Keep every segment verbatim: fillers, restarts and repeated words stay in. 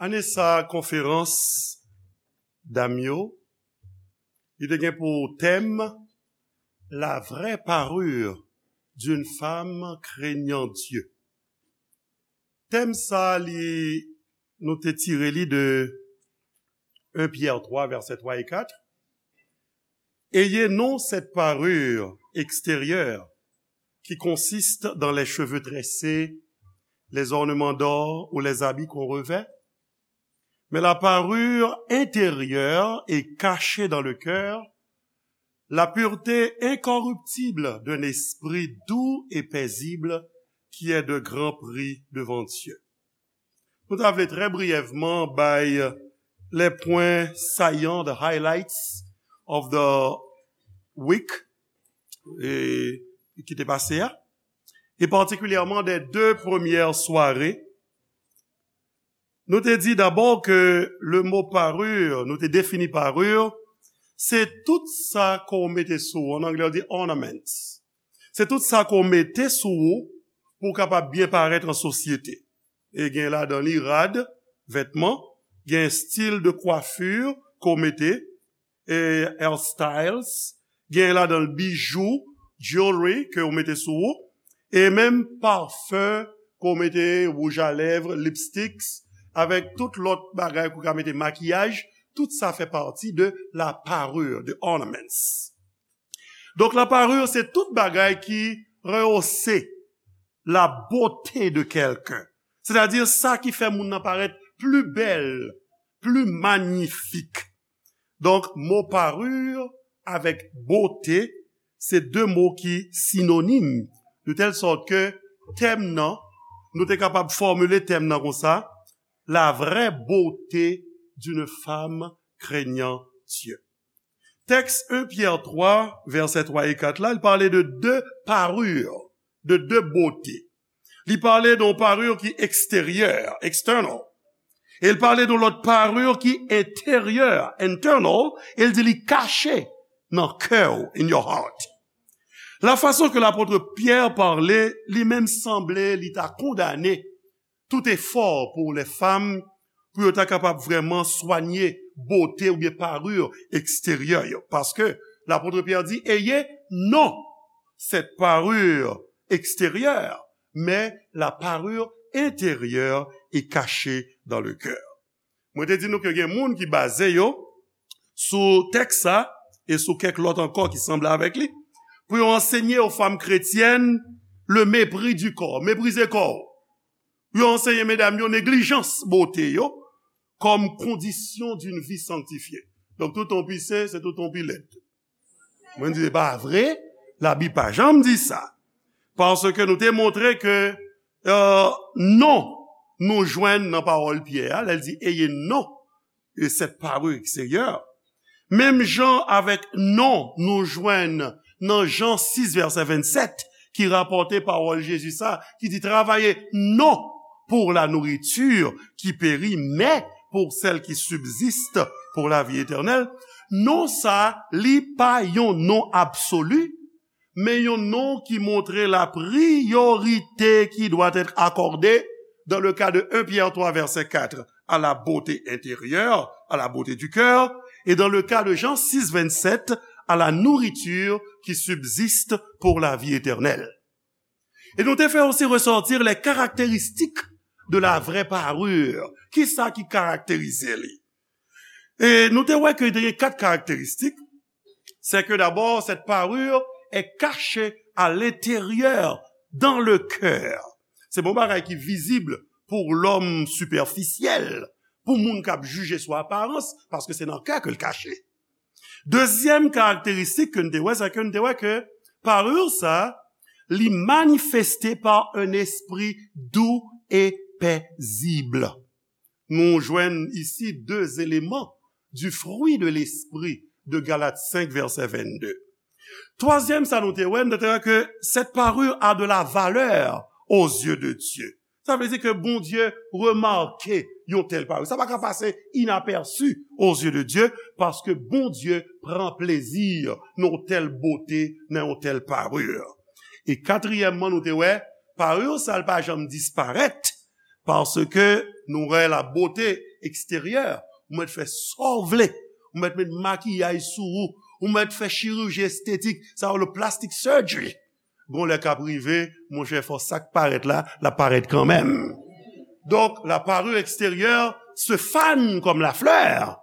Ane sa a, konferans dam yo, li te gen pou tèm La vraie parure d'une femme craignant Dieu. Tèm sa a, li, nou te tire li de un Pierre trois, vèsè twa e kat. Ayez non cette parure extérieure qui consiste dans les cheveux tressés, les ornements d'or ou les habits qu'on revêt, mais la parure intérieure et cachée dans le cœur, la pureté incorruptible d'un esprit doux et paisible qui est de grand prix devant Dieu. Nou ta vle trè briyèvman bay les points saillants, the highlights of the week, e, ki te pase a, e patikilyèman des deux premières soirées. Nou te di dabò ke le mot parure, nou te defini parure, se tout sa ke w mete sou ou. An anglè, yo di ornaments. Se tout sa ke w mete sou ou pou w kapab byen parèt an sosyete. E gen ladan li rad, vètman, gen stil de coiffure ke w mete, e hairstyles, gen ladan l bijou, jewelry ke w mete sou ou, e menm pafen ke w mete, wouj a lèv, lipsticks, avèk tout lòt bagay ke w ka mete, makiyaj, tout sa fè pati de la parure, de ornaments. Donk, la parure, se tout bagay ki rehausse la beauté de quelqu'un. Sètadi sa ki fè moun nan parèt pli bèl, pli manyifik. Donk, mo parure avèk bote, se de mo ki sinonim, de tèl sòt ke tèm nan, nou te kapab fòmile tèm nan konsa, la vraie beauté d'une femme craignant Dieu. Tèks un Pyè twa, vèsè twa e kat la, li pale de de parure, de de bote. Li pale de yon parure ki eksteryè, external. E l pale de yon lòt parure ki enteryè, internal, e l di li kache nan kè w, in your heart. La fason ke lapot Pyè pale, li menm sanble li ta kondane tout efò pou lè fanm, pou yo ta kapab vrèman swanye bote oubyen parure eksteryè yo. Paske lapot Pyè di, ayez non cette parure extérieure, mais la parure intérieure est cachée dans le cœur. Mwen te di nou ke gen moun ki baze yo sou tèks sa e sou kèk lòt ankò ki sanble avèk li, pou yo ansenye aux femmes chrétiennes le mépris du corps, meprize kò w. Yo ansenye medam yo neglijans bote yo comme condition d'une vie sanctifiée. Donk, tout on pise, se tout on pi lèd. Mwen di, se pa vre, Labib pa janm di sa. Paske nou te montre ke, euh, non, nou jwenn nan pawòl Pyè a, lè l di, ayez non, e cette parure extérieure. Menm jan avèk non, nou jwenn nan Jan sis, vèsè vennsèt, ki rapòte pawòl Jezi sa, ki di, travaillez non pour la nourriture qui périt, mais pour celle qui subsiste pour la vie éternelle. Non sa, li pa yon non absoli, men yon non ki montre la priorité qui doit être accordée dans le cas de un Pierre trois, verset quatre, à la beauté intérieure, à la beauté du cœur, et dans le cas de Jean six, vingt-sept, à la nourriture qui subsiste pour la vie éternelle. E nou te fè osi ressortir les caractéristiques de la vraie parure. Kisa ki karakterize li? E nou te wè ke te gen kat karakteristik. C'est que d'abord, cette parure est cachée à l'intérieur, dans le cœur. Se pa yon bagay ki vizib pou lòm sipèfisyèl, pou moun k ap jije sou aparans, paske se nan kè ke l kache. Dezyèm karakteristik ke n te wè, se ke n te wè ke parure sa, li manifeste par un esprit doux et paisible. Nou jwenn isi de eleman du fruit de l'esprit de Galates cinq, verset vingt-deux. Twazyèm sa nou te wè, nou te wè ke cette parure a de la valeur aux yeux de Dieu. Sa vle di ke Bondye remake yon tèl parure. Sa pa ka pase inaperçu aux yeux de Dieu, paske Bondye pran plezi nan yon tèl bote, nan yon tèl parure. E katriyèmman, nou te wè, parure sa l pa janm disparèt, paske Nou wè la beauté extérieure, ou mèt fè sa w vle, ou mèt met makiyaj sou ou, ou mèt fè chiriji estetik, sa yo le plastic surgery. Gon lè k ap rive, monchè, fò sa k parèt la, l ap parèt kanmenm. Donc, la parure extérieure se fane comme la fleur,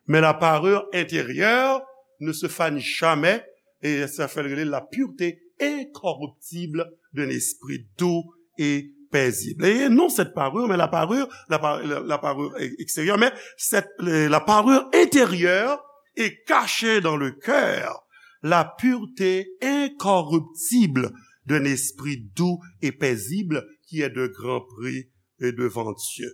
mais la parure intérieure ne se fane jamais, et sa fè l rele la pureté incorruptible d'un esprit doux et paisible. Et non cette parure, mais la parure, la, par- la, la parure extérieure, mais cette, la parure intérieure est cachée dans le cœur, la pureté incorruptible d'un esprit doux et paisible qui est de grand prix et devant Dieu.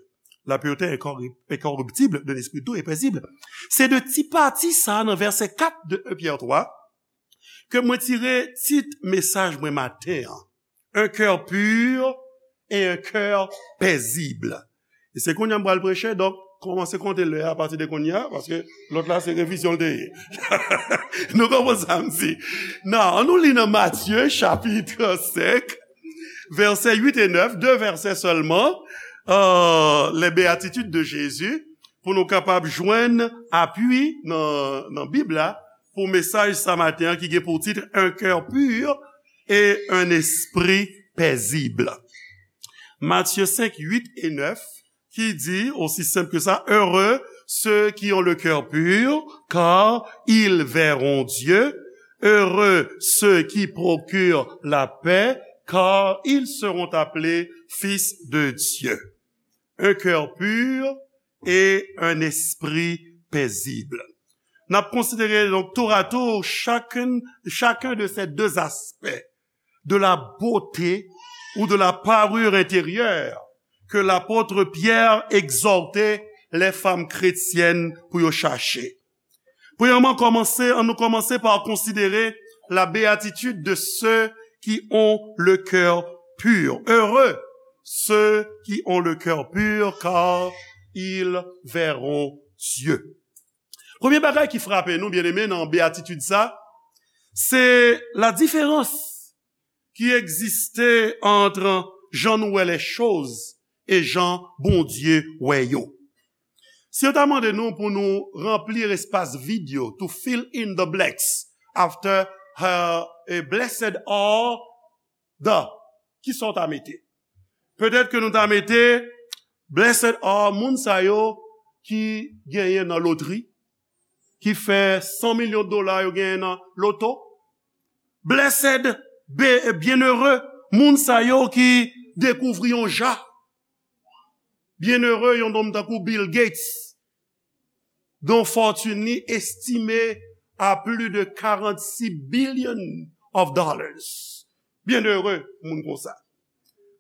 La pureté incorri- incorruptible d'un esprit doux et paisible. Se de ti pati sa nan vèsè kat de un Pyè twa ke mwen tire tit mesaj mwen maten an. Un cœur pur et un cœur paisible. E se kounye a m pral preche, donk kòmanse konte lè a apati de kounye a, paske lòt la se revizyon l te ye. Nou konprann sa m di? Nan, an nou li nan Matye chapit senk, vèsè uit e nèf, de vèsè sèlman, euh, les béatitudes de Jésus, pou nou kapab jwenn apui nan, nan Bib la, pou mesaj sa maten an ki gen pou tit un cœur pur et un esprit paisible. Matye senk, uit e nèf, ki di, aussi simple que ça, heureux ceux qui ont le cœur pur, car ils verront Dieu. Heureux ceux qui procurent la paix, car ils seront appelés fils de Dieu. Un cœur pur et un esprit paisible. N ap konsidere, donc, tour à tour chacun, chacun de ces deux aspects de la beauté ou de la parure intérieure que l'apôtre Pierre exhortait les femmes chrétiennes pou yo chache. Premyèman, kòmanse, ann nou kòmanse pa konsidere la béatitude de ceux qui ont le cœur pur. Heureux ceux qui ont le cœur pur, car ils verront Dieu. Premye bagay ki frape nou, byeneme, nan béatitid sa, se la diferans ki egziste ant jan nou wè les choses e jan Bondye wè yo. Si yo ta mande nou pou nou ranpli espas vid yo, to fill in the blanks after her, eh, blessed are the, kisa w ta mete? Petèt ke nou ta mete, blessed are moun sa yo ki genyen nan lotri, ki fè san milyon dola yo genyen nan loto. Blessed, be- byenere, moun sa yo ki dekouvri yon ja. Byenere, yon nonm tankou Bill Gates, dont fortune li estimée à plus de quarante-six billion of dollars. Byenere, moun konsa.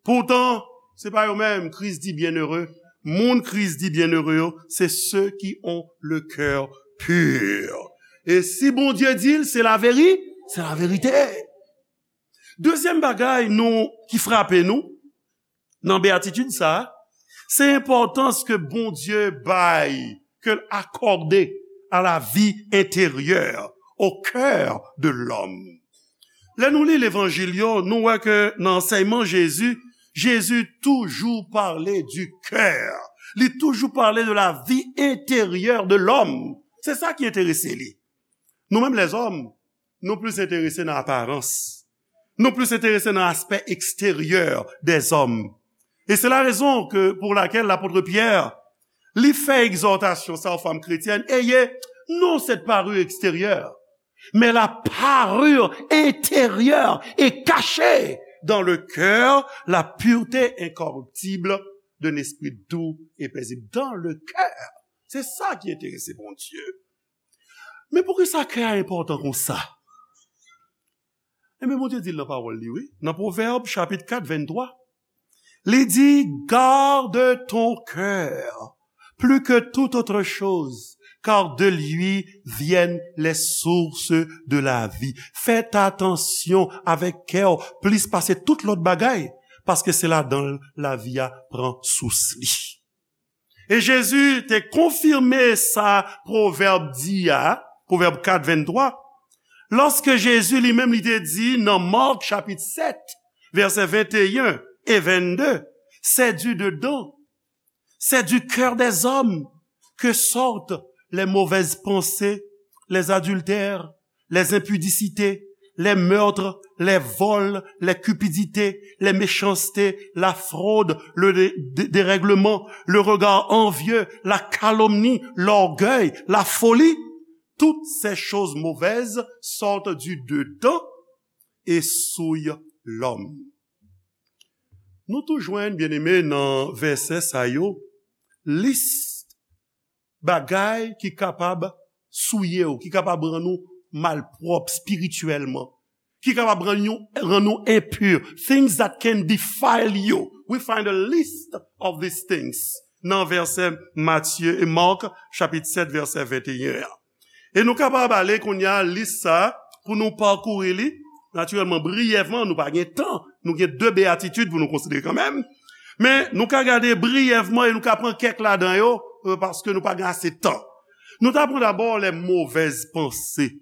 Poutan, se pa yo menm Kris di byenere. Moun Kris di byenere yo, se ceux qui ont le cœur pur. E si Bondye di l, se laveri-, se laverite. Dezyèm bagay nou, ki frape nou nan beyatitid sa a, se enpòtans ke Bondye bay, ke l akòde à la vie intérieure, au cœur de l'homme. Lè nou li levanjil yo, nou wè ke nan ansèyman Jezi, Jezi toujou pale du cœur. Li toujou pale de la vie intérieure de l'homme. Se sa ki enterese li. Nou menm lèzòm, nou plis enterese nan aparans. Nou plis enterese nan aspè eksteryè dèzòm. E se la rezon ke, pour laquelle l'apôtre Pierre, li fè egzòtasyon sa aux femmes chrétiennes, ayez non cette parure extérieure, mais la parure intérieure est cachée dans le cœur, la pureté incorruptible d'un esprit doux et paisible. Dans le cœur. Se sa ki enterese Bondye. Men poukisa kè a enpòtan konsa? Ebyen, Bondye di l nan pawòl li, wi. Nan Pwovèb, chapit kat, venntwa, li di, garde ton cœur plus que toute autre chose, car de lui viennent les sources de la vie. Fè atansyon avèk kè w plis pase tout lòt bagay, paske se ladan l lavi a pran sous li. E Jezi te konfime sa Pwovèb di a, Pwovèb kat, venntwa, lòske Jezi li menm li te di nan Mak chapit sèt, vèsè venteyen e vennde, c'est du dedans, C'est du cœur des hommes que sortent les mauvaises pensées, les adultères, les impudités, les meurtres, les vols, les cupidités, les méchancetés, la fraude, le dé-, dé-, dérèglement, le regard envieux, la calomnie, l'orgueil, la folie. Toutes ces choses mauvaises sortent du dedans et souillent l'homme. Nou tou jwenn, byeneme, nan vèsè sa yo, lis bagay ki kapab souye w, ki kapab rann ou malpwòp espirityèlman, ki kapab rann nou, rann nou enpi. Things that can defile you. We find a list of these things nan vèsè Matye e Mark, chapit sèt, vèsè venteyen an. E nou kapab ale kounye a lis sa a pou nou pakouri li. Natirèlman, briyèvman, nou pa gen tan. Nou gen de beyatitid pou nou konsidere kanmenm. Men nou ka gade briyèvman e nou ka pran kèk ladan yo, euh, paske nou pa gen ase tan. Nou ta pran dabò les mauvaises pensées.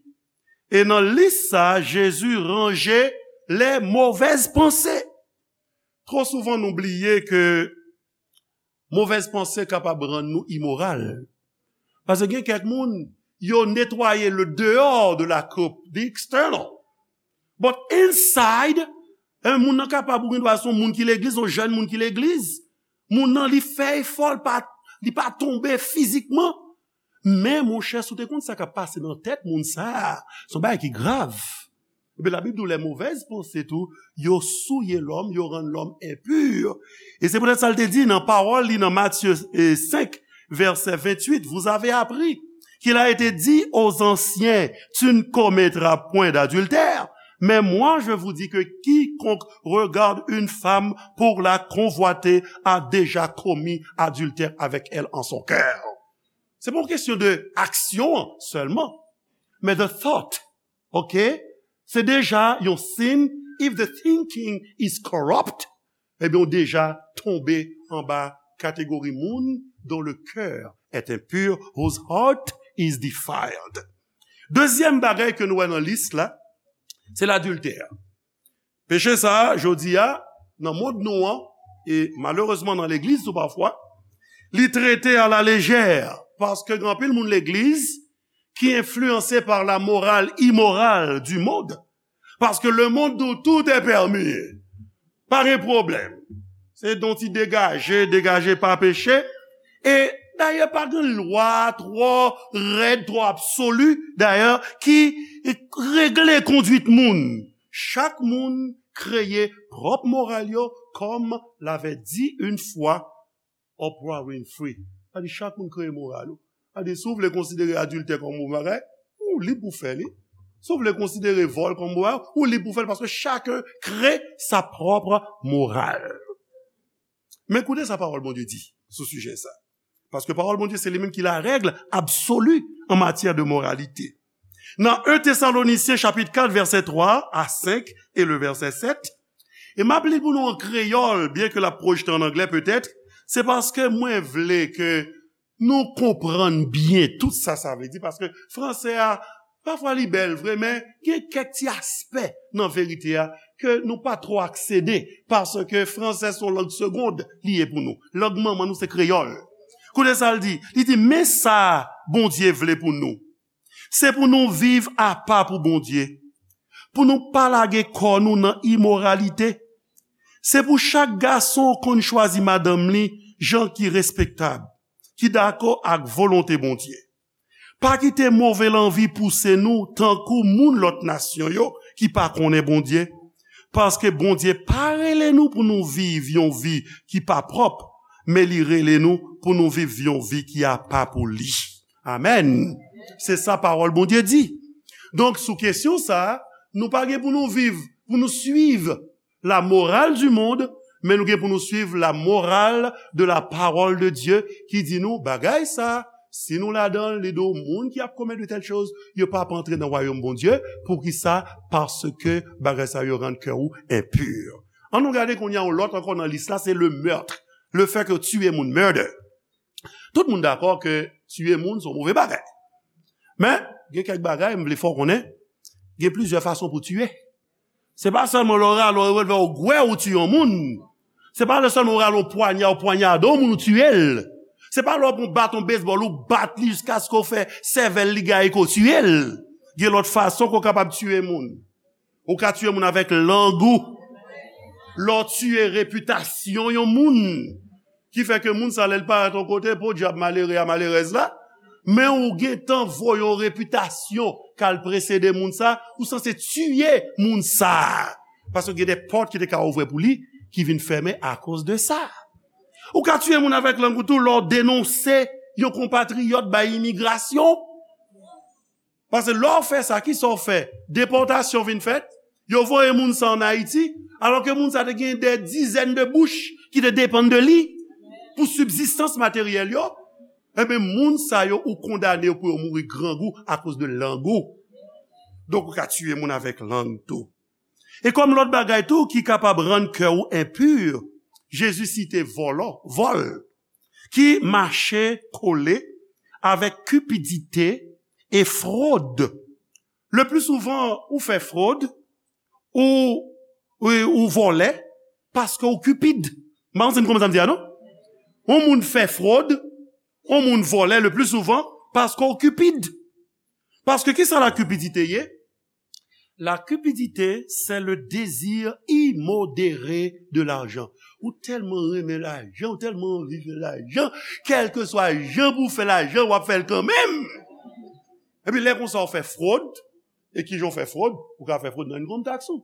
E nan lis sa a, Jezi ranje les mauvaises pensées. Twò souvan nou bliye ke movèz panse kapab rann nou imoral. Paske gen kèk moun, yo netwaye le dehors de la coupe, the external. But inside, eh, moun nan kapab, ou gen dwa se yon moun ki legliz, yon jèn moun ki legliz. Moun nan, li fè efò, li pa, li pa tonbe fizikman. Men, monchè, si w te konn sa k ap pase nan tèt moun sa a, se yon bagay ki grav. Ebyen, Labib di w, les mauvaises pensées tou, yo souye lòm, yo rann lòm enpi. E se poutèt sa l te di nan pawòl li nan Matye, eh, senk, vèsè venntuit, vous avez appris qu'il a été dit aux anciens, tu ne commettras point d'adultère. Mais moi, je vous dis que quiconque regarde une femme pour la convoiter a déjà commis adultère avec elle en son cœur. Se pa yon kesyon de aksyon an sèlman, men the thought, ok? Se deja yon siy, if the thinking is corrupt, ebyen, ou deja tonbe anba kategori moun dont le cœur est impur, whose heart is defiled. Dezyèm bagay ke nou wè nan lis la, se ladiltè. Peche sa a, jodi a, nan mond nou an, e malerezman nan legliz tou pafwa, li trete a la lejè, paske gen anpil moun legliz ki enfliyanse pa la moral imoral du monde, paske le monde di w tout est permis, pa gen pwoblèm. Se yon ti degaje, degaje pa peche, e dayè pa gen lwa twò rèd, twò absoli, dayè, ki regle konduit moun. Chak moun kreye pwòp moral yo, comme l'avait dit une fois Oprah Winfrey. Sa di chak moun kreye moral ou. Sa di si w vle konsidere adiltè kòm bon bagay, ou lib pou fè li. Si w vle konsidere vòl kòm bon bagay, ou lib pou fè li, paske chacun crée sa propre morale. Men koute sa pawòl Bondye di sou sijè sa. Paske pawòl Bondye se li menm ki la règle absolue en matière de moralité. Nan en Tesalonisyen chapit kat vèsè twa a senk e le vèsè sèt, e m ap li pou nou an kreyòl, byen ke l ap pwojte an anglè petèt, se paske mwen vle ke nou konprann byen tout sa sa vle di, paske franse a, pafwa li bèl vre, men gen kèk ti aspè nan verite a ke nou pa twò aksede, paske franse se yon lang segond li ye pou nou. Lang manman nou se kreyòl. Koute sa l di, li di, men sa Bondye vle pou nou. Se pou nou viv apa pou Bondye, pou nou pa lage kò nou nan imoralite. Se pou chak gason konn chwazi madanm li jan ki respektab, ki dakò ak volonte Bondye. Pa kite move lanvi pouse nou tankou moun lòt nasyon yo ki pa konnen Bondye, paske Bondye pa rele nou pou nou viv yon vi ki pa pwòp, men li rele nou pou nou viv yon vi ki apa pou li. Amèn. Se sa pawòl Bondye di. Donk, sou kesyon sa a, nou pa gen pou nou viv, pou nou suiv la morale du monde, men nou gen pou nou suiv la morale de la parole de Dieu, ki di nou, bagay sa, si nou ladan l, li di w, moun ki ap komèt de tèl choz, yo p ap antre nan wayòm Bondye. Poukisa? Paske bagay sa yo rann kè ou enpi. Ann nou gade kounye a yon lòt ankò nan lis la, se le meurtre. Le fait que tuer moun, murder. Tout moun dakò ke tiye moun se yon move bagay. Men, gen kèk bagay, m vle fè w konnen, gen plizyè fason pou tiye. Se pa sèlman lè w rale yon revòlvè ou gwè ou tiye yon moun. Se pa lè sèlman w rale yon pwanya, ou pwanyade yon moun ou tiye l. Se pa lè w pran baton bezbòl, ou bat li jiskaske w fè sèvèl li gaye, ke w tiye l. Gen lòt fason ke w kapab tiye moun. Ou ka tiye moun avèk lang ou. Lè w tiye repitasyon yon moun, ki fè ke moun sa, lè l parèt yon kote, podyab malere a, malerèz la, men ou gentan voye yon repitasyon k al presede moun sa, ou sanse tiye moun sa. Paske gen de pòt ki te ka ouvè pou li, ki vin fèmen akoz de sa. Ou ka tiye moun avèk lang ou tou, lè w denonse yon konpatriyòt bay imigrasyon. Paske lè w fè sa, kisa w fè? Depòtasyon vin fèt, yo voye moun sa ann Ayiti, alò ke moun sa te gen de dizèn de bouch ki te depann de li pou sibzistans materyèl yo. Ebyen, moun sa yo, ou kondane yo pou yo mouri grangou akoz de lang ou. Donk, ou ka tiye moun avèk lang tou. E kòm lòt bagay tou ki kapab rann kè ou enpi, Jezi site vòlò, vòl, ki mache kole avèk kipidite e fwod. Le pli souvan, ou fè fwod, ou, ou, ou vòlè, paske ou kipid. M pa konn si n konprann sa m di a, non? Yon moun fè fwod, yon moun vòlè, le pli souvan, paske ou kipid. Paske kisa la kipidite ye? La cupidité, c'est le désir immodéré de l'argent. Ou tèlman renmen lajan, ou tèlman anvi fè lajan, kèlkeswa jan pou w fè lajan, w ap fè l kanmenm. Epi lè konsa, w fè fwod, e kijan w fè fwod? Ou ka fè fwod nan income tax ou.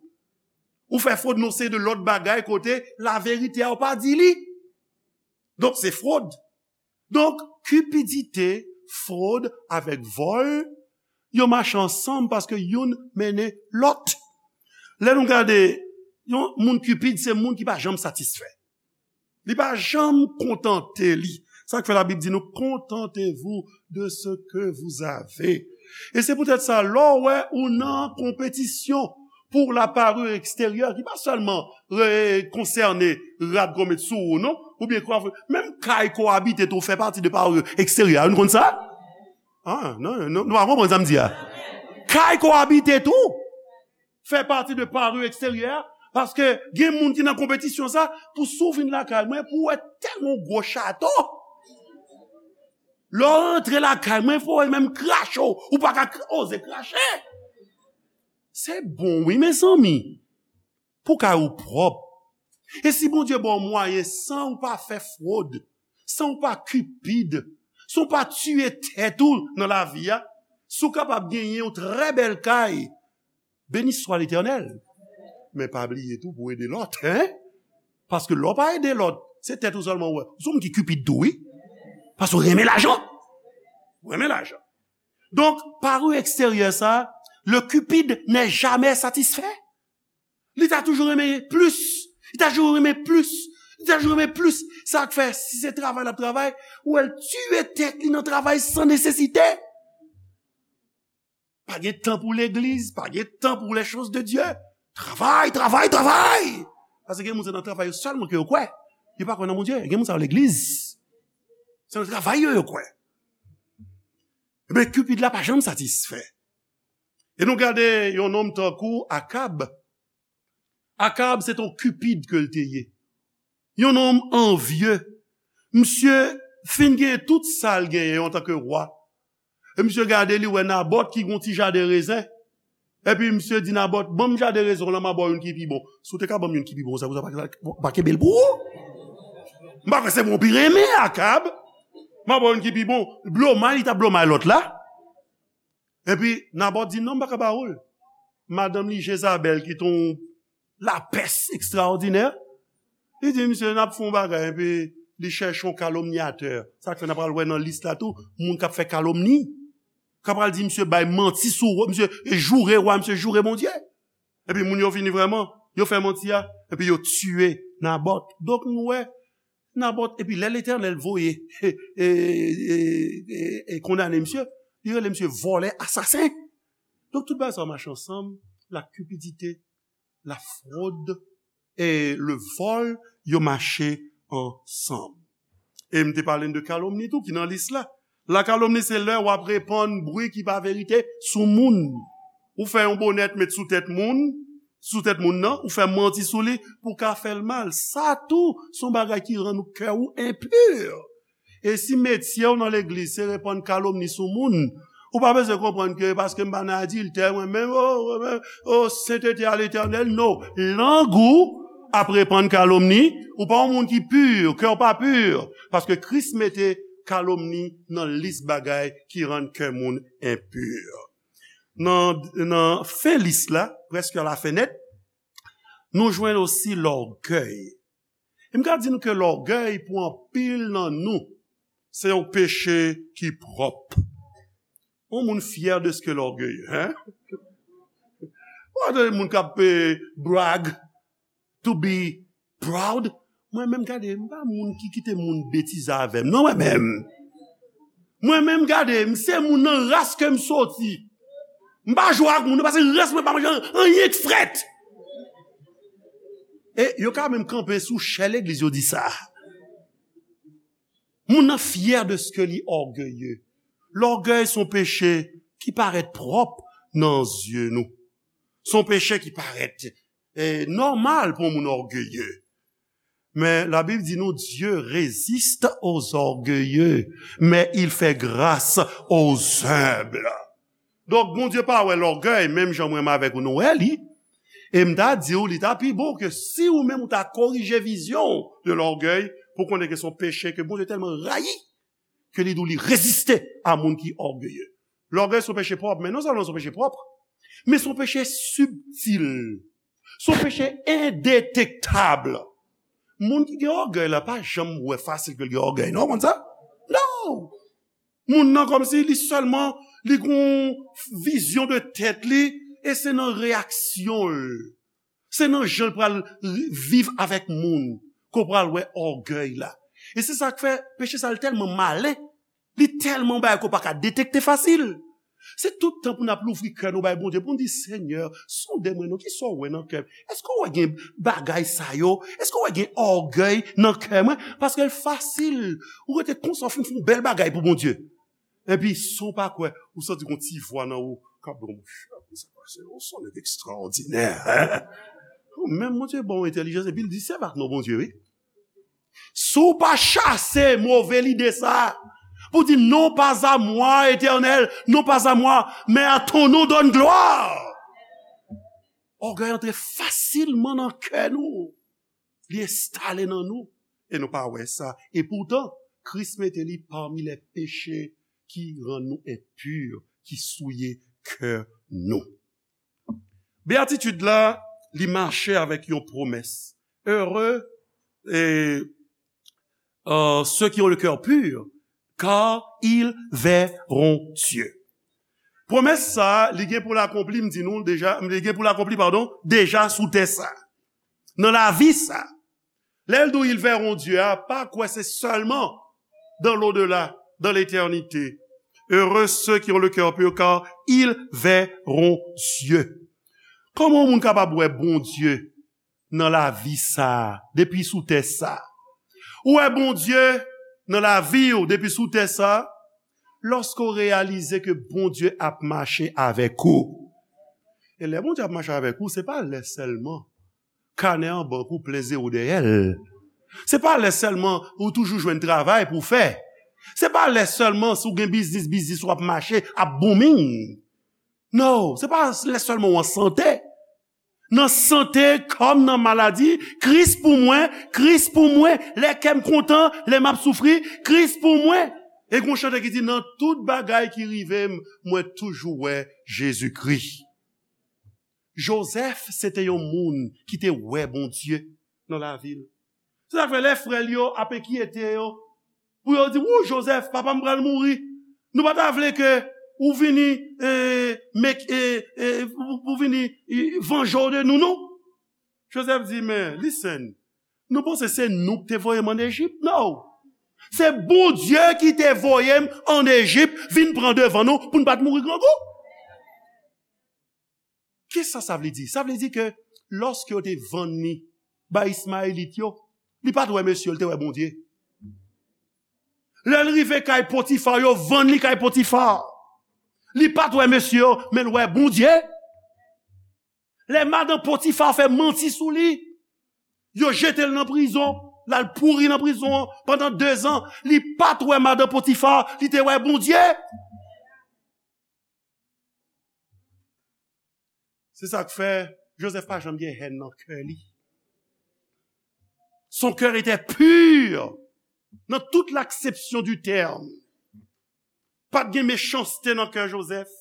Ou fè fwod nan seri de lòt bagay kote laverite a w pa di li. Donk, se fwod. Donk, cupidité, fwod avèk vòl, yo mache ansanm paske youn mennen lòt. Lè nou gade, yon moun cupide, se moun ki pa janm satisfè. Li pa janm kontante li. Sa k fè Labib di nou, contentez-vous de ce que vous avez. E se poutèt sa, lè w wè ou nan konpetisyon pour la parure extérieure, ki pa sèlman re-, konsène rad ke w met sou ou, non? Oubyen kwa, menm kay ke w abite tou fè pati de parure extérieure. Nou konn sa? Ah, non, non, nou pa konprann sa m di a. Kay ke w abite tou fè pati de parure extérieure, paske gen moun ki nan konpetisyon sa, pou si w vin lakay mwen, pou w wè tèlman yon gwo chato. Lè w rantre lakay mwen, fò w menm krache w, ou pa ka kra-, oze krache. Se bon, wi, mezanmi. Pou kay ou pwòp. E si Bondye ba w mwayen, san ou pa fè fwod, san ou pa cupide, san ou pa tiye tèt ou nan lavi a, si w kapab genyen yon trè bèl kay, béni soit l'Éternel. Men pa bliye tou pou ede lòt, hein? Paske lè w pa ede lòt, se tèt ou sèlman w wè. Ou se yon moun ki cupide tou, wi. Paske w renmen lajan. Ou renmen lajan. Donk, parure extérieure sa, le cupide n'est jamais satisfait. Li ta toujou renmen plis. Li ta toujou renmen plis. Li ta toujou renmen plis. Sa k fè, si se travay l ap travay, ou wè l tiye tèt li nan travay san nesesite. Pa gen tan pou legliz, pa gen tan pou les choses de Dieu. Travay, travay, travay! Paske gen moun se nan travay yo sèlman ke yo kwè. Yo pa kwè nan Bondye. Gen moun sa yo legliz. Se nan travay yo yo kwè. Ebyen, Cupid la pa janm satisfè. E nou gade yon nonm tankou Akab. Akab se t on Cupid ke l te ye. Yon nonm anvye. Misye fin gen tout sa l genyen antanke wa. E misye gade, li wè Nabòt ki gen yon ti jaden rezen. Epi misye di Nabòt, "Ban m jaden rezen w lan, m a ba w youn ki pi bon." Si w te ka ban m youn ki pi bon, sa pou sa pa, pa kenbe l pou ou? M pa kwè se mwen w pi renmen, Akab. M a ba w youn ki pi bon. Blomay, li t ap blomay lòt la. Epi Nabòt di, "Non, m pa ka ba ou l." Madanm li, Jezabèl, ki t on lapès ekstraòdinè, li di, "Misye, n ap fè yon bagay," epi li chèche yon kalomnyatè. Sa k fè n ap pral wè nan lis la tou, moun k ap fè kalomni. K ap pral di, "Misye bay manti sou, misye joure wa, misye joure Bondye." Epi moun yo vini vrèman, yo fè manti a, epi yo tiye Nabòt. Donk nou wè, Nabòt, epi lè Letènèl voye, e, e, e, e, e kondane misye, li rele misye vòlè, asasen. Donk tout bagay sa yo mache ansanm, la cupidité, la fraude e le vol, yo mache ansanm. E m te pale n de kalomni tou ki nan lis la. La kalomni se lè w ap repann bri ki pa verite sou moun. Ou fè yon bonèt met sou tèt moun, sou tèt moun nan, ou fè manti sou li pou w ka fè l mal. Sa tou se yon bagay ki rann kè ou enpi. E si metye w nan legliz se repann kalomni sou moun, ou pa bezwen konprann ke paske m pa nan adiltè, mwen menm, o, mwen menm, o, sentete a Letènèl, non. Lang ou ap repann kalomni, ou pa yon moun ki pi, kè w pa pi, paske Kris mete kalomni nan lis bagay ki rann kè moun enpi. Nan, nan fen lis la, prèske a la fen nèt, nou jwenn osi lògèy. E m ka di nou ke lògèy pou anpil nan nou, se yon peche ki pwòp. Yon moun fyè de ce que l'orgueil, hein? Ou pa tande moun k ap, eh, brag, to be proud? Mwen menm, gade, m pa moun ki kite moun betize avè m, non, mwen menm. Mwen menm, gade, m se moun nan ras ke m soti. M pa jwe ak moun, paske ras mwen pa manje anyen k frèt. E yo ka menm kanpe sou chè legliz, yo di sa. Moun nan fyè de ce que li ògeye. Lògèy se yon peche ki parèt pwòp nan zye nou. Se yon peche ki parèt, eh, nòmal pou yon moun ògeye. Men Labib di nou, Dieu résiste aux orgueilleux, mais il fait grâce aux humbles. Donk, Bondye pa wè lògèy, menm jan mwen menm avèk ou nou wè li. E m ta di w, li ta pi bon ke si ou menm ou ta korije vizyon w de lògèy, pou konnen ke se yon peche ke Bondye tèlman rayi, ke li di w li reziste a moun ki ògeye. Lògèy se yon peche pwòp, men non sèlman se yon peche pwòp, men se yon peche sibtil. Se yon peche endetektab. Moun ki gen ògèy la pa janm wè fasil ke l gen ògèy, non, w konn sa? Non! Moun nan kòmsi li sèlman, li gen yon vizyon de tèt li, e se nan reyaksyon l, se nan jan l pral ri-, viv avèk moun, ke w pral wè ògèy la. E se sa k fè peche sa l tèlman malen, li tèlman bagay ke w pa ka detekte fasil. Se tout tan pou n ap louvri kè nou bay Bondye, pou n di, Senyè, sonde mwen non, kisa w wè nan kè m? Èske w wè gen bagay sa yo? Èske w wè gen ògèy nan kè mwen? Paske l fasil. Ou rete konsa, w fin fè yon bèl bagay pou Bondye. Epi, san w pa kwè, ou santi gon ti vwa nan ou k ap di w, monchè, sa pase, ou se yon nèg ekstraòdinè, hein? Menm Bondye ba w entèlijans, epi l di, sèvi ak non Bondye, wi. Si w pa chase move lide sa, pou di, non pas à moi, Éternel, non pas à moi, mais à ton nom donne gloire. Ògèy antre fasilman nan kè nou. Li enstale nan nou. E nou pa wè sa. E poutan, Kris mete li pami lè peche ki rann nou enpi, ki souye kè nou. Beyatitid la, li mache avèk yon pwomès. Heureux, eh, euh, ceux qui ont le cœur pur, car ils verront Dieu. Pwomès sa, li gen pou l akonpli, m di nou deja, li gen pou l akonpli, padon, deja sou tè sa. Nan lavi sa. Lè l di w, ils verront Dieu a, pa kwè se sèlman dans l'au-delà, dans l'éternité. Heureux ceux qui ont le cœur pur, car ils verront Dieu. Kòman yon moun kapab wè Bondye nan lavi sa a, depi sou tè sa a? Ou wè Bondye nan lavi w depi sou tè sa a, lòske w reyalize ke Bondye ap mache avèk ou. E lè Bondye ap mache avèk ou, se pa lè sèlman kanè an bank ou plen zewo dèyè l. Se pa lè sèlman ou toujou jwenn travay pou w fè. Se pa lè sèlman si w gen biznis, biznis ou ap mache, ap booming. No, se pa lè sèlman w an sante. Nan sante kòm nan maladi, Kris pou mwen, Kris pou mwen, lè kè m kontan, lè m ap soufri, Kris pou mwen. E gon chante ki di, nan tout bagay ki rive m, mwen toujou wè Jezikri. Jozèf, se te yon moun ki te wè Bondye nan lavi l. Se sa k fè lè frè l yo ap enkyete yo, pou yo di, "Wou, Jozèf, papa m pral mouri. Nou pa ta vle ke ou vini, eh, mek, eh, eh, pou, pou vini, eh, vanje w de nou, non?" Jozèf di, "Men, listen, nou panse se nou ki te voye m ann Ejip? No. Se Bondye ki te voye m ann Ejip, vin pran devan nou, pou n pa t mouri grangou." Kisa sa vle di? Sa vle di ke lòske yo te vann li bay Ismayelit yo, li pa t wè mesye yo, li te wè Bondye. Lè l rive kay Potifa, yo vann li kay Potifa. Li pa t wè mesye yo, men l wè Bondye. Lè madanm Potifa fè manti sou li, yo jete l nan prizon. L al pouri nan prizon an pandan dezan. Li pa t wè madan Potifa, li te wè Bondye. Se sa k fè Joseph pa janm gen hèn nan kè li. Son cœur était pur dans toute l'acception du terme. Pa t gen mechanste nan kè Joseph.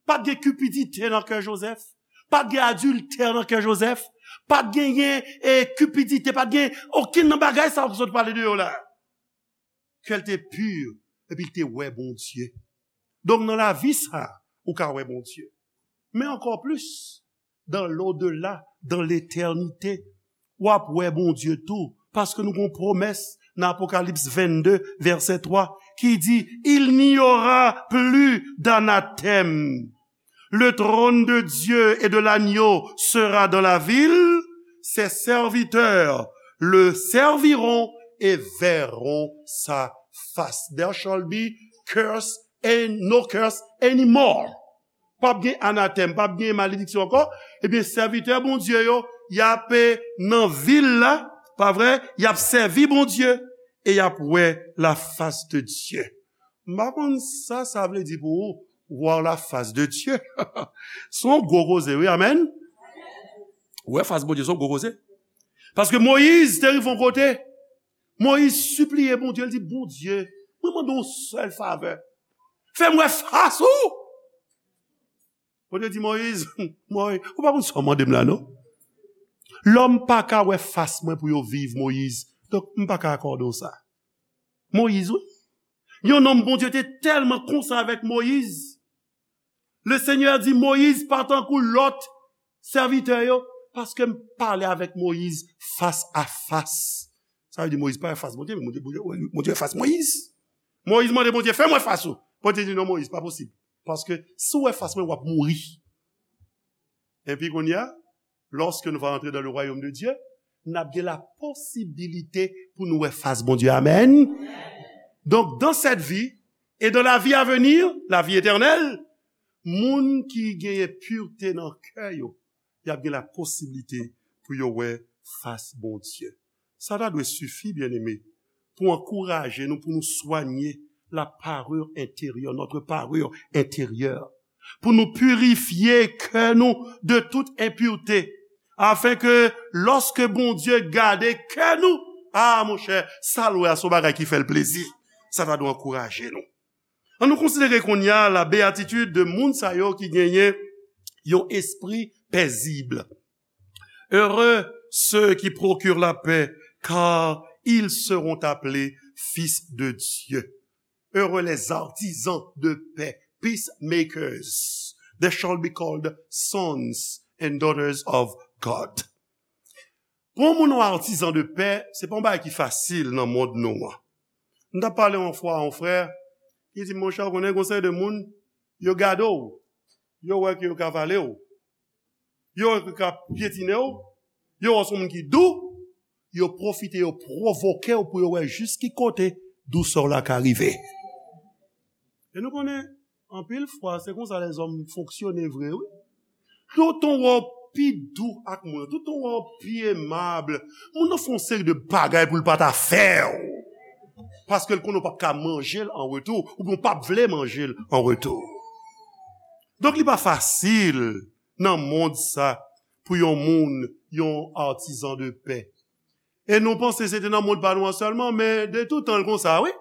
Pa t gen kipidite nan kè Joseph. Pa t gen adiltè nan kè Joseph. Pa t genyen e kipidite, pa t gen okenn nan bagay sa yo ki sot pale de yo la. Kè l te pi, epi l te wè Bondye. Donk, nan lavi sa, ou ka wè Bondye. Men ankò plis, dans l'au-delà, dans l'éternité, w ap wè Bondye tou. Paske nou gon pwomès nan Apokalips vennde, vèsè twa, ki di, il n'y aura plus d'anathème. Le trône de Dieu et de l'agneau sera dans la ville, ses serviteurs le serviront et verront sa face. There shall be curse and no curse anymore. P ap gen anatèm, p ap gen malediksyon ankò. Ebyen, sèvitè Bondye yo, y ap nan vil la, pa vre? Y ap sèvi Bondye e y ap wè la face de Dieu. M pa konn sa sa vle di pou ou, voir la face de Dieu. Se yon gwo koze, wi, amèn. Wè fas Bondye, se yon gwo koze. Paske Moyiz te rive yon kote, Moyiz sipliye Bondye, l di, Bondye, mwen mande yon sèl favè. Fè m wè fas ou. Bondye di Moyiz, Moyiz, ou pa konn sa w mande m la, non? Lòm pa ka wè fas mwen pou yo viv, Moyiz. Donk, m pa ka akòde w sa. Moyiz, wi. Yon nonm Bondye te tèlman konsa avèk Moyiz. Le Seigneur di, Moyiz pa tankou lòt sèvitè yo, paske m pale avèk Moyiz fas a fas. Sa vle di Moyiz pa wè fas Bondye, men Bondye, Bondye, Bondye wè fas Moyiz. Moyiz mande Bondye, fè m wè fas ou. Bondye di, non, Moyiz, pa posib. Paske si w wè fas mwen, w ap mouri. Epi kounye a, lorsque nous allons entrer dans le royaume de Dieu, n ap gen la posibilite pou nou wè fas Bondye. Amèn. Donc, dans cette vie et dans la vie à venir, la vie éternelle, moun ki genyen pirte nan kè yo, y ap gen la posibilite pou yo wè fas Bondye. Sa ta dwe sifi, byeneme, pou ankouraje nou, pou nou swanye la parure intérieure, notre parure intérieure, pou nou pirifye kè nou de tout enpirte, afin ke lòske Bondye gade kè nou, a, monchè, sa l wè a se yon bagay ki fè l plezi. Sa ta dwe ankouraje nou. Ann nou konsidere kounye a la béatitude de moun sa yo ki genyen yon espri pezib. Heureux ceux qui procurent la paix, car ils seront appelés fils de Dieu. Heureux les artisans de paix, peacemakers. They shall be called sons and daughters of God. Pou yon moun yon artisan de pè, se pa yon bagay ki fasil nan mond nou an. M t ap pale yon fwa a yon frè, ki di m, monchè, ou konnen gon seri de moun, yo gade w, yo wè ke yo ka vale w, yo wè ke yo ka pyetine w, yo wè w se yon moun ki dou, yo pwofite, yo pwovoke w pou yo wè jis ki kote dousè w la ka rive. E nou konnen, anpil fwa, se konsa lèzòm fonksyone vre, wi. Toutan w wè w pi dou ak moun, toutan w wè w pi emab, moun nan fè yon seri de bagay pou l pa ta fè w. Paske l konnen w p ap ka manje l an retou, oubyen w p ap vle manje l an retou. Donk, li pa fasil nan mond sa pou yon moun, yon artisan de pè. E nou panse se te nan mond pa nou an sèlman, men de tout tan l konsa, wi.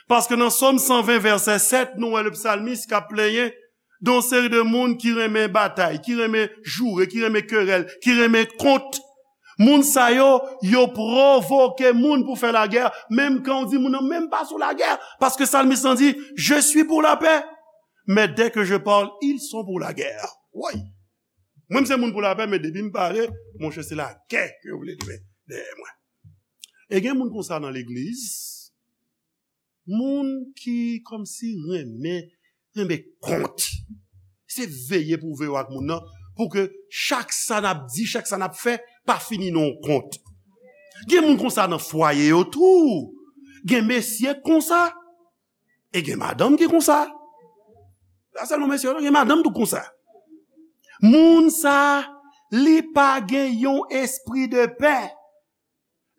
Paske nan Sòm san ven, vèsè sèt, nou wè le psalmiste k ap plenyen de yon seri de moun ki renmen batay, ki renmen joure, ki renmen kerèl, ki renmen kont. Moun sa yo, yo pwovoke moun pou fè lagè, menm kan w di moun nan menm pa sou lagè, paske psalmiste lan di, je suis pour la paix, mais dès que je parle, ils sont pour la guerre. Woy! Mwen, m se moun pou lapè, men depi m pale, monchè, se lagè ke yo vle li men dèyè mwen. E gen moun konsa nan legliz, moun ki kòmsi renmen, renmen kont. Se veye pou veye w ak moun nan, pou ke chak sa n ap di, chak sa n ap fè, pa fini nan yon kont. Gen moun konsa nan fwaye yo tou. Gen mesye konsa. E gen madanm ki konsa. Pa sèlman mesye yo, non, gen madanm tou konsa. Moun sa, li pa gen yon espri de pè.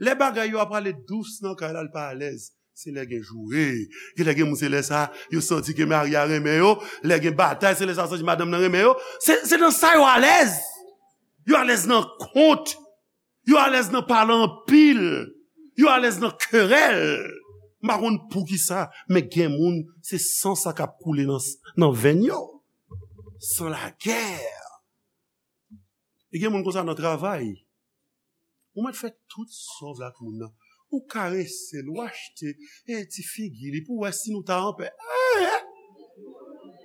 Lè bagay yo ap prale dous nan kay la, l pa alèz. Se lè gen joure. Gen lè gen moun, se lè sa, yo santi ke mari a renmen yo. Lè gen batay, se lè sa, santi madanm nan renmen yo. Se, se nan sa yo alèz. Yo alèz nan kont. Yo alèz nan pale anpil. Yo alèz nan kerèl. M pa konn poukisa, men gen moun, se san sa k ap koule nan, nan venn yo. San lagè. E gen moun konsa nan travay. Ou mèt fè tout sa w vle ak moun nan. Ou karese l, ou achte e ti figi li pou w wè si nou ta anpè. Eh, eh.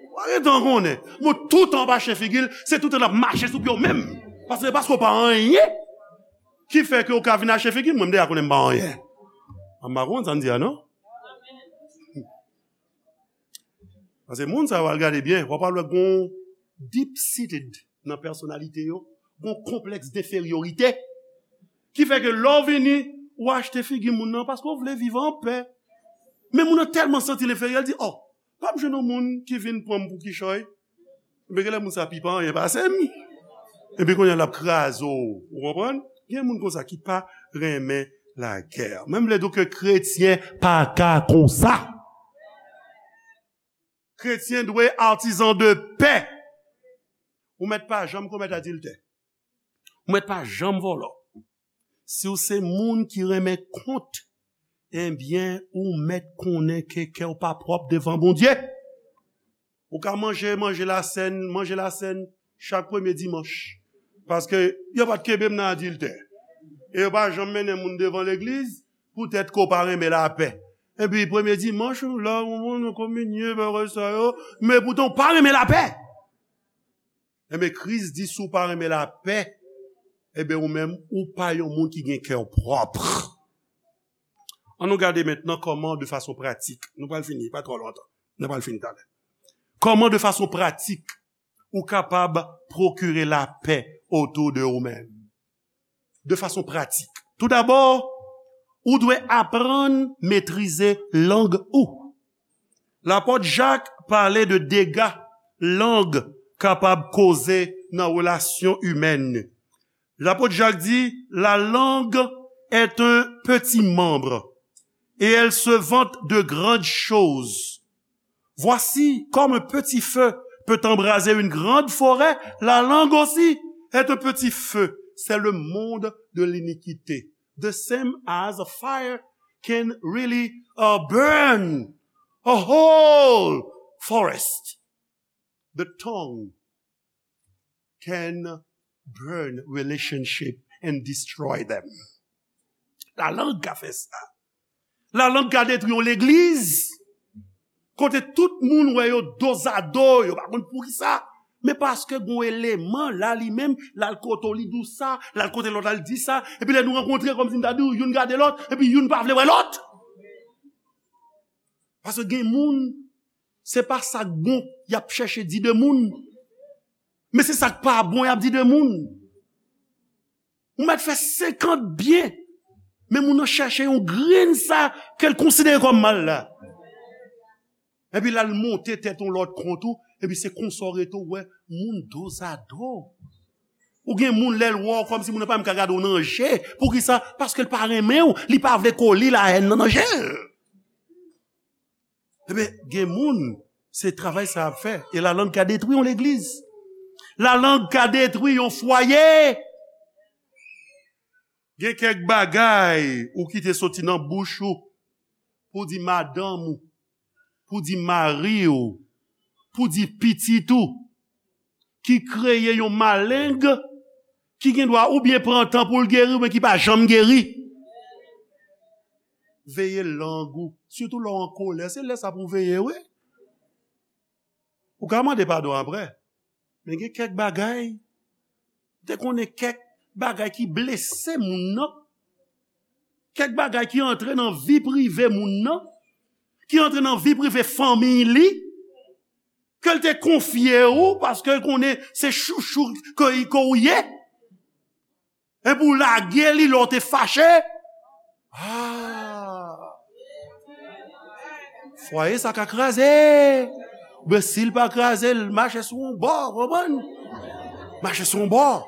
Ou pa gen tan konnen. Bon, toutan w ap achte figi l, se toutan l ap mache sou pye w menm. Paske, paske w pa anyen ki fè ke w ka vin achte figi l. Mwen, m deja konnen m pa anyen. M pa konn sa m di a, non? Paske moun sa yo, al gade byen, w ap al wè gon deep seated nan pèsonalite yo, gon konplèks denferyorite, ki fè ke lè w vini, ou achte figi moun nan paske w vle viv anpè. Men moun nan tèlman santi l enferyè, l di, "Oh, p ap jwenn yon moun ki vin pran m pou kichòy." Men genlè moun sa pi pa anyen pase m. Epi kounye a l ap kraze w. Ou konprann? Gen moun konsa ki pa renmen lagè. Mwen m vle di w ke kretyen pa ka konsa. Kretyen dwe artisan de paix. Ou mèt pa janm komèt adiltè. Ou mèt pa janm vòlò. Si w se moun ki renmen kont, ebyen, ou mèt konnen ke kè w pa pwòp devan Bondye. Ou ka manje, manje lasèn, manje lasèn chak premye dimanch. Paske yo pa t kenbe m nan adiltè. E yo pa janm mennen moun devan legliz, poutèt ke w pa renmen lapè. Epi premye dimanch, ou la, ou moun, ou kominye, bagay sa yo, men poutan w pa renmen lapè. Enben, Kris di, si w pa renmen lapè, enben, ou menm, ou pa yon moun ki gen kè pwòp. Ann nou gade mentnan kòman, de fason pratik, nou pral fini, pa twò lontan, nou pral fini talè. Kòman, de fason pratik, ou kapab pwokire lapè otou de ou menm? De fason pratik. Toudabò, ou dwe aprann metrize lang ou. Lapòt Jak pale de dega lang kapab koze nan relasyon imèn. Lapòt Jak di, "La langue est un petit membre, et elle se vante de grandes choses. Voici, comme un petit feu peut embraser une grande forêt, la langue aussi est un petit feu. C'est le monde de l'iniquité. The same as a fire can really, uh, burn a whole forest. The tongue can burn relationship and destroy them." Lalang ka fè sa. Lalang ka detwi yon legliz. Kote tout moun wè yo dozado, yo pa konn poukisa. Men paske gon eleman la li menm, l al kote w, li di w sa, l al kote lòt la, l di sa. Epi lè nou rankontre, kòmsi m ta di w, youn gade lòt, epi youn pa vle wè lòt. Paske gen moun, se pa sa k bon y ap chèche di de moun, men se sa k pa bon y ap di de moun. Ou mèt fè senkant byen, men moun nan chèche yon grenn sa ke l konsidere kòm mal la. Epi l al monte tèt yon lòt kont ou, epi se konsa w rete w wè moun dozado. Ou gen moun lè l wè w kòmsi moun nan pa menm ka gade w nan je. Poukisa? Paske l pa renmen w, li pa vle kole lahèn nan nan je l. Ebyen, gen moun, se travay sa y ap fè. E lalang ka detwi yon legliz. Lalang ka detwi yon fwaye. Gen kèk bagay ou kite soti nan bouch ou pou di madanm ou, pou di mari w, pou di pitit ou, ki kreye yon maleng ki gen dwa oubyen pran tan pou l geri, oubyen ki pa janm geri. Veye lang ou, sitou lè w an kolè, se lè sa pou w veye, wi. Ou ka mande padon apre, men gen kèk bagay, te konnen kèk bagay ki blese moun nan, kèk bagay ki antre nan vi prive moun nan, ki antre nan vi prive fanmiy li, ke l te konfye ou, paske l konnen se chouchou ke, ke ou ye. Epi w lage li lè w te fache. Ah! Fwaye sa ka kraze. Oubyen si l pa kraze, l mache sou yon bò, konprann? Mache sou yon bò.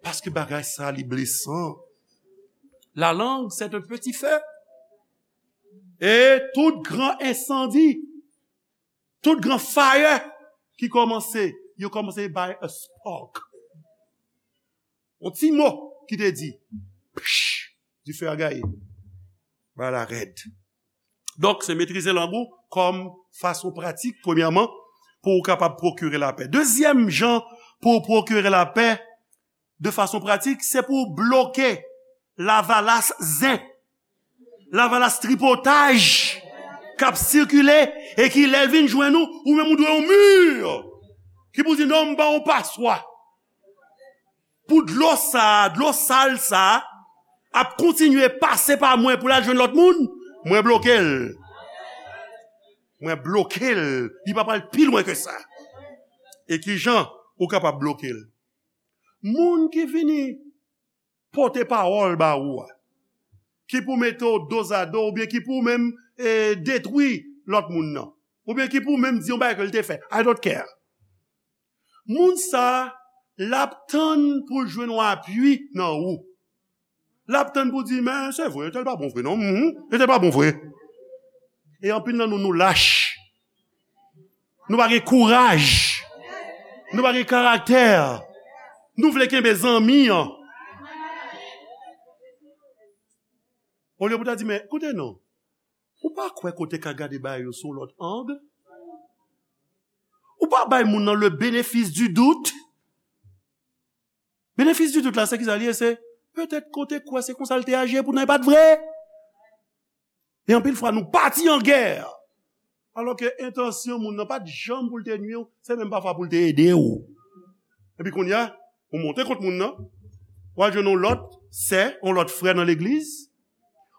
Paske bagay sa li blesan. La langue, c'est un petit feu. E tout gran ensandi, tout gran fire ki kòmanse, yo kòmanse by a spark. Yon ti mo ki te di, psh, dife a gaye. Bagay la rèd. Donk, se metrize lang ou kòm fason pratik, premyèman, pou ou kapab pwokire lapè. Dezyèm jan pou w pwokire lapè de fason pratik, se pou w bloke lavalas zen, lavalas tripotaj k ap sikile e ki, lè l vin jwenn ou, ou menm ou dwe yon mi ki pou di, "Non, m ba w yon paswa." Pou dlo sa a, dlo sal sa a, ap kontinye pase pa mwen pou l al jwenn lòt moun, mwen bloke l. Mwen bloke l. Li pa pral pi lwen ke sa. E ki jan ou kapab bloke l? Moun ki vini pote pawòl ba ou a, ki pou mete w dozado, oubyen ki pou menm, e, detwi lòt moun nan, oubyen ki pou menm di yon bagay ke l te fè. I don't care. Moun sa a, l ap tann pou l jwenn yon apui nan ou. L ap tann pou di, "Men, se vre, entèl pa bon vre, non. Mhm, entèl pa bon vre." E anpil nan nou, nou lach. Nou pa gen kouraj. Nou pa gen karaktè. Nou vle kenbe zanmi an. Olye pou ta di, "Men, koute non. Ou pa kwè kote ka gade bagay yo sou lòt ang? Ou pa bay moun nan le bénéfice du doute?" Bénéfice du doute la, se ki sa l ye? Se petèt kote kwè se konsa l te aji, epoutan e pa t vre. E anpil fwa, nou pati an gè. Alò ke entansyon moun nan pa t janm pou l te nwi w, se menm pafwa pou l te ede w. Epi kounye a, ou monte kont moun nan, w al jwenn yon lòt sè, yon lòt frè nan legliz,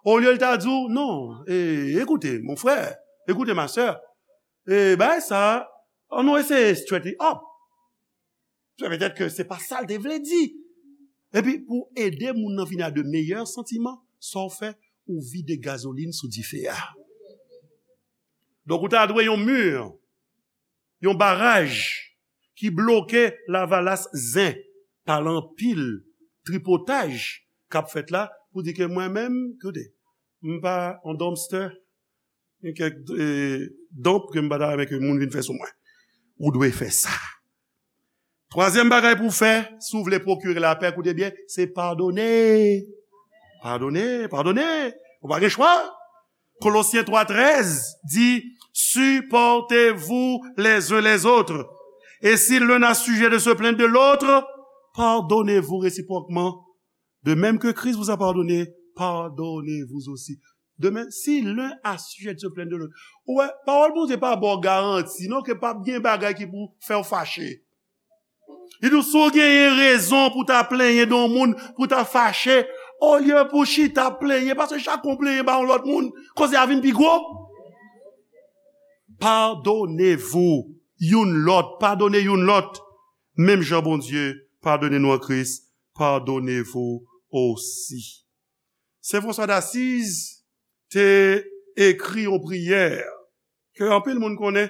olye l ta di w, "Non, e, écoutez, mon frère, écoutez, ma sœur, e, bagay sa, ann nou eseye straight it up." Se petèt ke se pa sa l te vle di. Epi, pou ede moun nan vin a de meyè santiman, sa w fè, ou vide gazolin sou dife a. Donk, ou ta dwe yon mi, yon baraj ki bloke lavalas zen pa lanpil tripotaj k ap fèt la pou di ke mwen menm, koute, m pa yon dumpster, gen kèk, e, donp ke m pa ta renmen ke moun vin fè sou mwen. Ou dwe fè sa. Twazyèm bagay pou w fè, si w vle pwokire lapè, koute byen, se padone. Padone, padone. Ou pa gen chwa. Kolosyen twa trèz di, "Supportez-vous les uns les autres. Et si l'un a sujet de se plaindre de l'autre, pardonnez-vous réciproquement. De même que Christ vous a pardonné, pardonnez-vous aussi." De même, si l'un a sujet de se plaindre de l'autre. Ou wè, pawòl Bondye pa ba w garanti, non, ke p ap gen bagay ki pou fè w fache. Li di w, si w genyen rezon pou ta plenyen de yon moun, pou ta fache, olye pou w chita plenyen, paske chak yon plenyen ba yon lòt moun, koze a vin pi gwo. Pardonnez-vous youn lòt, padone youn lòt. Menm jan Bondye padone nou an Kris, pardonnez-vous aussi. Sen François d'Assise te ekri yon priyè ke anpil moun konnen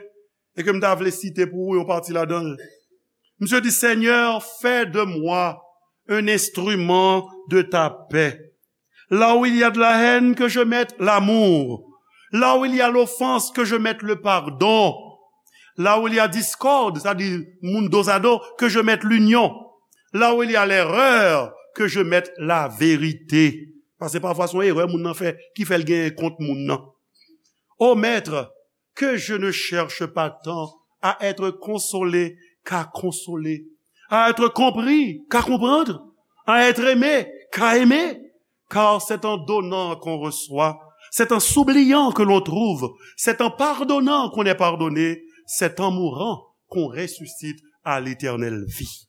e ke m ta vle site pou ou yon pati ladan l. Misye di, "Seigneur, fais de moi un instrument de ta paix. Là où il y a de la haine, que je mette l'amour. Là où il y a l'offense, que je mette le pardon. Là où il y a discorde, c'est-à-dire moun dozado, que je mette l'union. Là où il y a l'erreur, que je mette la vérité." Paske pafwa se yon erè moun nan fè ki fè l genyen kont moun nan. Ô Maître, que je ne cherche pas tant à être consolé qu'à consoler, à être compris qu'à comprendre, à être aimé qu'à aimer, car c'est en donnant qu'on reçoit, c'est en s'oubliant que l'on trouve, c'est en pardonnant qu'on est pardonné, c'est en mourant qu'on ressuscite à l'éternelle vie.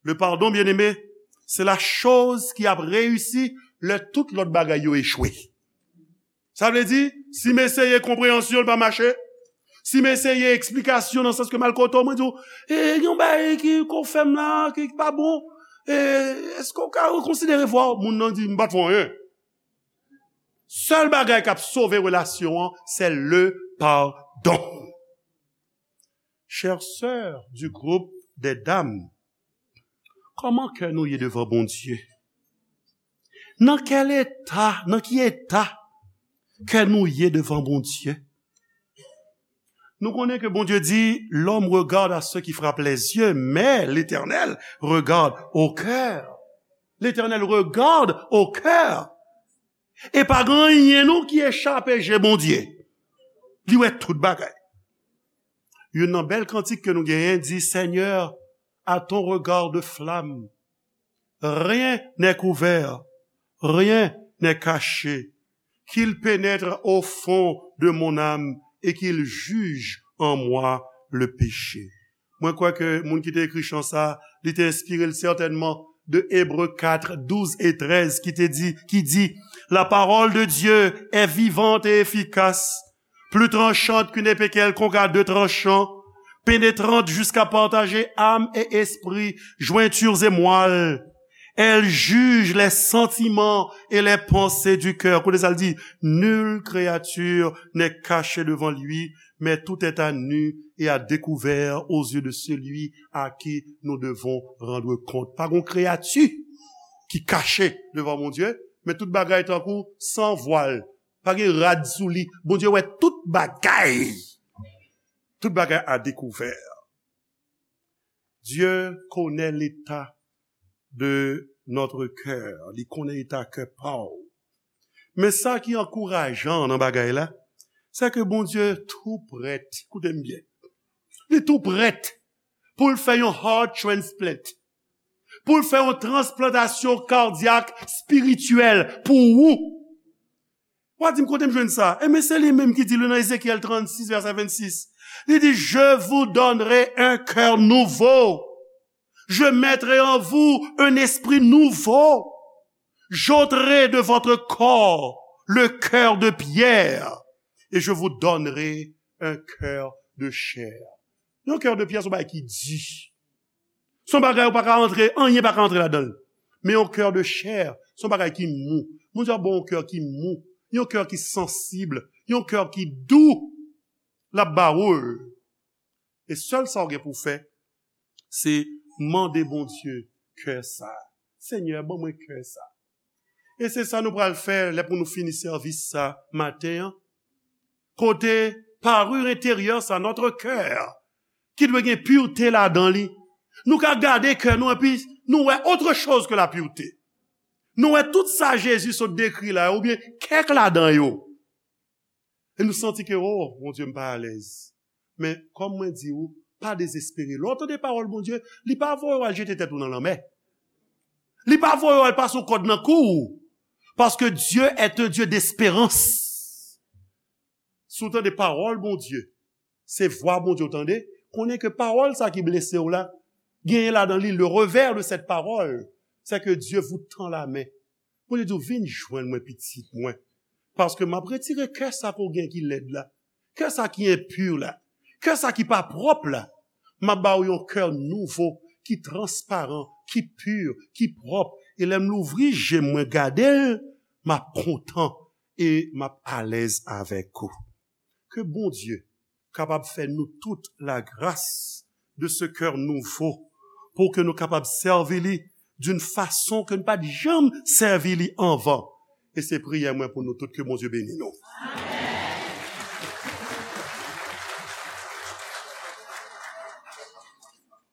Le pardon, bien-aimé, se la choz ki ap reyisi lè tout lòt bagay yo echwe. Sa vle di, si m eseye konpreyansyon, l pa mache, si m eseye eksplikasyon nan sans ke m al kote w, mwen di w, "E, gen yon bagay ki, ke w fè m la, ki, ki pa bon. E, èske w ka rekonsidere vwa w?" Moun nan di, "M pa t fè w anyen." Sèl bagay k ap sove relasyon an, se le pardon. Chères sœurs du groupe des dames, kòman kè nou ye devan Bondye? Nan kèl eta, nan ki eta kè nou ye devan Bondye? Nou konnen ke Bondye di, l'homme regarde à ce qui frappe les yeux, mais l'Éternel regarde au cœur. L'Éternel regarde au cœur. E pa gen anyen non ki echape je Bondye. Li wè tout bagay. Youn nan bèl kantik ke nou genyen di, Seigneur, à ton regard de flamme, rien n'est couvert, rien n'est caché. Qu'il pénètre au fond de mon âme et qu'il juge en moi le péché. Mwen kwè ke moun ki te ekri chan sa, li te enspire l sètènman de Ebre kat, douz e trèz, ki te di, ki di, La parole de Dieu est vivante et efficace, plus tranchante qu'une épée quelconque à deux tranchants, pénétrante jusqu'à partager âme et esprit, jointures et moelle. Elle juge les sentiments et les pensées du cœur. Koute sa l di, Nulle créature n'est cachée devant lui, mais tout est à nu et à découvert aux yeux de celui à qui nous devons rendre compte. Pa gen kreyati ki kache devan Bondye, men tout bagay tankou san vwal. Pa gen rad sou li. Bondye wè tout bagay. Tout bagay à découvert. Dieu connaît l'état de notre cœur. Li konnen eta kè pa w. Men sa ki ankourajan nan bagay la, se ke Bondye tou prèt, koute m byen, li tou prèt pou l fè yon heart transplant, pou l fè yon transplantasyon kadyak espirityèl pou ou. W a di m kote m jwenn sa? Enben, se li menm ki di li nan Ezekyèl trannsis, vèsè vennsis. Li di, Je vous donnerai un cœur nouveau. Je mettrai en vous un esprit nouveau. J'ôterai de votre corps le cœur de pierre et je vous donnerai un cœur de chair. Yon kè de pyè se yon bagay ki di. Se yon bagay ou pa ka antre, anyen pa ka antre ladan l. Men yon kè de chè, se yon bagay ki mou. Bondye ap ba w yon kè ki mou, yon kè ki sansib, yon kè ki dou. L ap ba ou l. E sèl sa w gen pou w fè, se mande Bondye kè sa. Senyè, ban mwen kè sa. E se sa nou pral fè lè pou nou fini sèvis sa maten an. Kote parure enteryè sa, notre cœur, ki dwe gen pirte ladan li. Nou ka gade kè nou epi nou wè autre chose que la pureté. Nou wè tout sa Jezi sot dekri la, oubyen kèk ladan yo. E nou santi ke, oh, Bondye, m pa alèz. Men, kòm mwen di ou, pa dezespere. Lè w tande pawòl Bondye, li pa voye w al jete tèt ou nan lanmè. Li pa voye w al pase yon kòd nan kou w. Paske Dieu est un Dieu d'espérance. Si w tande pawòl Bondye, se vwa Bondye w tande, konnen ke pawòl sa ki blese w la, genyen ladan li, le revers de cette parole, c'est que Dieu vous tend la main. Bondye di w, vin jwenn mwen, pitit mwen. Paske m ap retire kè sa ke w gen ki lèd la, kè sa ki enpi la, kè sa ki pa pwòp la. M ap ba w yon kè nouvo, ki transparan, ki pi, ki pwòp. E lè m louvri je m, mwen gade l, m ap kontan e m ap alèz avèk ou. Ke Bondye kapab fè nou tout la grâce de ce cœur nouveau, pou ke nou kapab sèvi li d'une façon ke nou pa t janm sèvi li anvan. E se priyè mwen pou nou tout, ke Bondye beni nou.